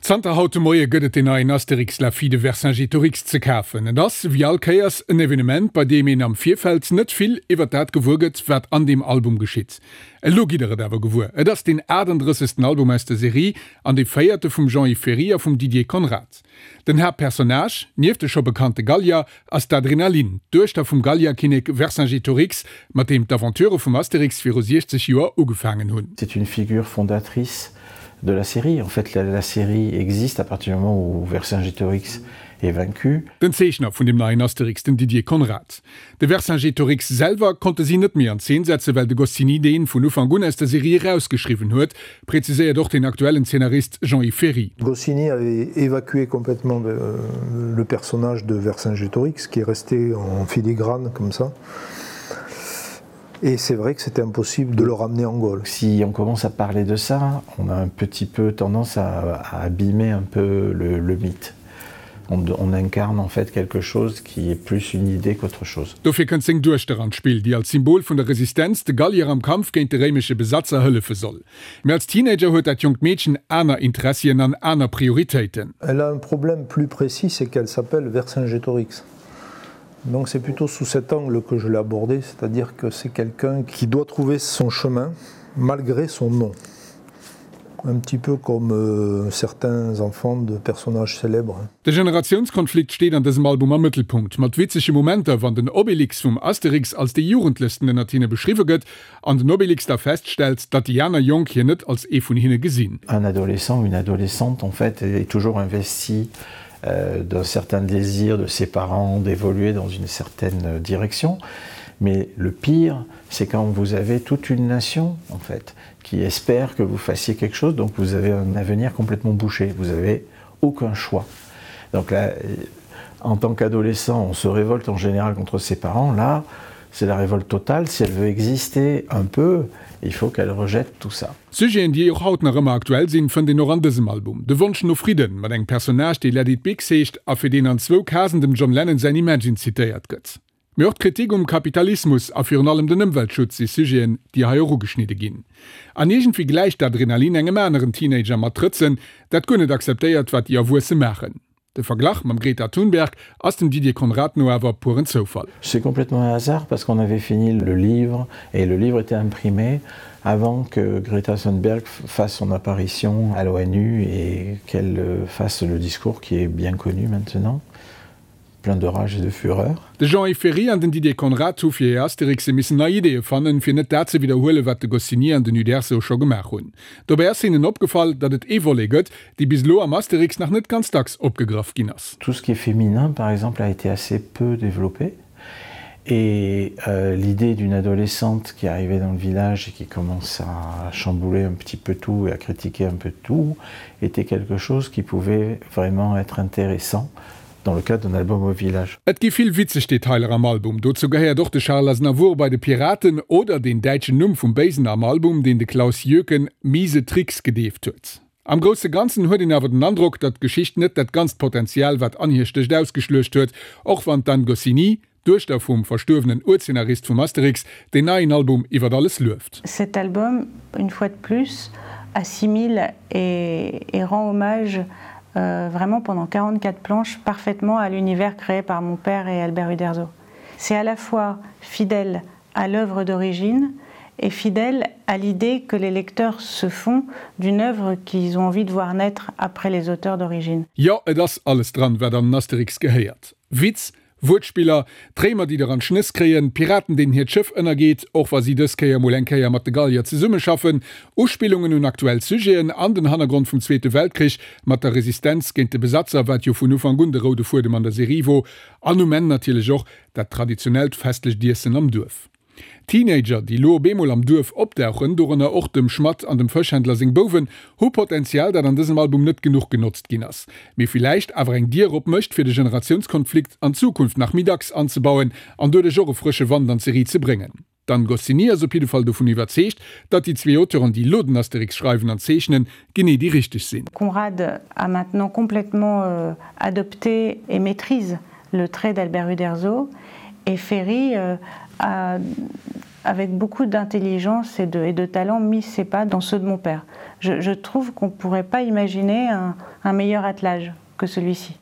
Zanter haut de Moie gëtt et den neien Astérix, la fille de Vercingétorix ze kafen. Et ass, wéi all Kéiers, en Evenement, bei deem een am Virfeld net vill iwwer dat gewuer gëtt, wat an deem Album geschitt. Elo gitt der et awer gewuer, Et ass deen 38. Album aus der Serie an dee véierte vum Jean-Yves Ferri a vum Didier Conrad. Den Haaptpersonnage, nieft de scho bekannte Gallier, ass d'Adrenaline, d'Duechter vum Gallierkinnek Vercingétorix, mat deem d'Aventure vum Astérix viru 60 Joer ugefaangen hunn. C'est une figure fondatrice de la série. En fait, la, la série existe à partir du moment où Vercingétorix est vaincu. Den Zeechner vun dem neien Astérix, den Didier Conrad. De Vercingétorix selwer konnte si net méi an Zeen setzen, well de Goscinny deen vun Ufank un aus der Serie erausgeschriwwen huet, präziséiert och den aktuellen Zeenarist Jean-Yves Ferri. Goscinny avait évacué complètement le personnage de Vercingétorix qui est resté en filigrane comme ça. Et c'est vrai que c'était impossible de le ramener en Gaule. Si on commence à parler de ça, on a un petit peu tendance à, à abîmer un peu le, le mythe. On, on incarne en fait quelque chose qui est plus une idée qu'autre chose. Dofir kënnt seng Duechter an d'Spill, déi als Symbol vun der Resistenz de Gallier am Kampf géint de réimesche Besatzer hëllefe soll. Mee als Teenager huet dat jonkt Meedchen aner Interessien an aner Prioritéiten. Elle a un problème plus précis, c'est qu'elle s'appelle Vercingétorix. Donc c'est plutôt sous cet angle que je l'ai abordé, c'est-à-dire que c'est quelqu'un qui doit trouver son chemin malgré son nom. Un petit peu comme euh, certains enfants de personnages célèbres. De Generatiounskonflikt steet an dësem Album am Mëttelpunkt, mat witzege Momenter, wann den Obélix vum Astérix als dee Jugendlechsten ënnert hinne beschriwwe gëtt an den Obélix da feststellt, datt déi aner Jonk hien net als ee vun hinne gesinn. Un adolescent, une adolescente en fait est toujours investi euh, d'un certain désir de ses parents d'évoluer dans une certaine direction. Mais le pire, c'est quand vous avez toute une nation en fait qui espère que vous fassiez quelque chose, donc vous avez un avenir complètement bouché, vous avez aucun choix. Donc là, en tant qu'adolescent, on se révolte en général contre ses parents, là, c'est la révolte totale, si elle veut exister un peu, il faut qu'elle rejette tout ça. Sujeten, déi och haut nach ëmmer aktuell sinn, fënnt een och an dësem Album. De Wonsch no Fridden, mat engem Personnage, dee Let it Bix heescht a fir deen an zwou Casen dem John Lennon säin Imagine zitéiert gëtt. Mee och d'Kritik um Kapitalismus a virun allem den Ëmweltschutz si Sujeten, déi hei och ugeschnidde ginn. An iergendwéi gläicht d'Adrenalin engem aneren Teenager mat Trëtzen, dat guer net akzeptéiert, wat déi Erwuesse maachen. De Verglach mam Greta Thunberg ass dem Didier Conrad no awer puren Zoufall. C'est complètement un hasard parce qu'on avait fini le livre et le livre était imprimé avant que Greta Thunberg fasse son apparition à l'ONU et qu'elle euh, fasse le discours qui est bien connu maintenant plein de rage et de fureur. De Jean-Yves Ferri an den Didier Conrad hu fir hir Astérixe missen nei Ideeë fannen, fir net dat ze widderhuelen, wat de Goscinny an den Uderzo scho gemaach hunn. Dobäi ass hinnen opgefall, datt et ee Volet gëtt, dee bis elo am Astérix nach net ganz dacks opgegraff ginn ass. Tout ce qui est féminin, par exemple, a été assez peu développé et euh, l'idée d'une adolescente qui arrivait dans le village et qui commence à chambouler un petit peu tout et à critiquer un peu tout était quelque chose qui pouvait vraiment être intéressant dans le cadre d'un album au village. Et gi vill witzeg Detailer am Album. Dozou gehéiert och de Charles Aznavour bei de Piraten oder deen däitschen Numm vum Béisen am Album, deen de Klaus Jöken Miese Tricks gedeeft huet. Am grousse Ganzen huet een awer den Androck, datt d'Geschicht net dat ganzt Potenzial, wat an hir stécht, ausgeschluecht huet, och wann d'Anne Goscinny, d'Duechter vum verstuerwenen Urzeenarist vum Astérix, deen neien Album iwwer alles lueft. Cet album, une fois de plus, assimile et, et rend hommage euh, vraiment pendant 44 planches parfaitement à l'univers créé par mon père et Albert Uderzo. C'est à la fois fidèle à l'œuvre d'origine et fidèle à l'idée que les lecteurs se font d'une œuvre qu'ils ont envie de voir naître après les auteurs d'origine. Jo, et ass alles dran, wat an den Astérix gehéiert. Witz, Wuertspiller, d'Réimer déi der an d'Schnëss kréien, Piraten deenen hiert Schëff ënnergeet, och wa si dës Kéier mol eng Kéier mat de Gallier zesummeschaffen, Uspillungen un aktuell Sujeten an den Hannergrond vum Zweete Weltkrich mat der Resistenz géint de Besatzer, wat jo vun Ufank un de roude Fuedem an der Serie wor, an um Enn natierlech och dat traditionellt festlecht Iessen am Duerf. Teenager, déi lo op eemol am Duerf opdauchen, dorënner och dem Schmadd an dem Fëschhändler seng Bouwen, hu Potenzial, dat an dësem Album net genuch genotzt ginn ass, mee villäicht awer eng Dier op mécht, fir de Generatiounskonflikt an Zukunft nach méi dacks anzebauen an doduerch och e frësche Wand an d'Serie ze bréngen. D'Anne Goscinny ass op jidde Fall dovun iwwerzeegt, datt déi zwee Auteuren, déi lo den Astérix schreiwen an zeechnen, genee déi richteg sinn. Conrad a maintenant complètement adopté et maîtrise le trait d'Albert Uderzo et Ferry a. avec beaucoup d'intelligence et de, et de talent mis ses pas dans ceux de mon père. Je, je trouve qu'on ne pourrait pas imaginer un, un meilleur attelage que celui-ci.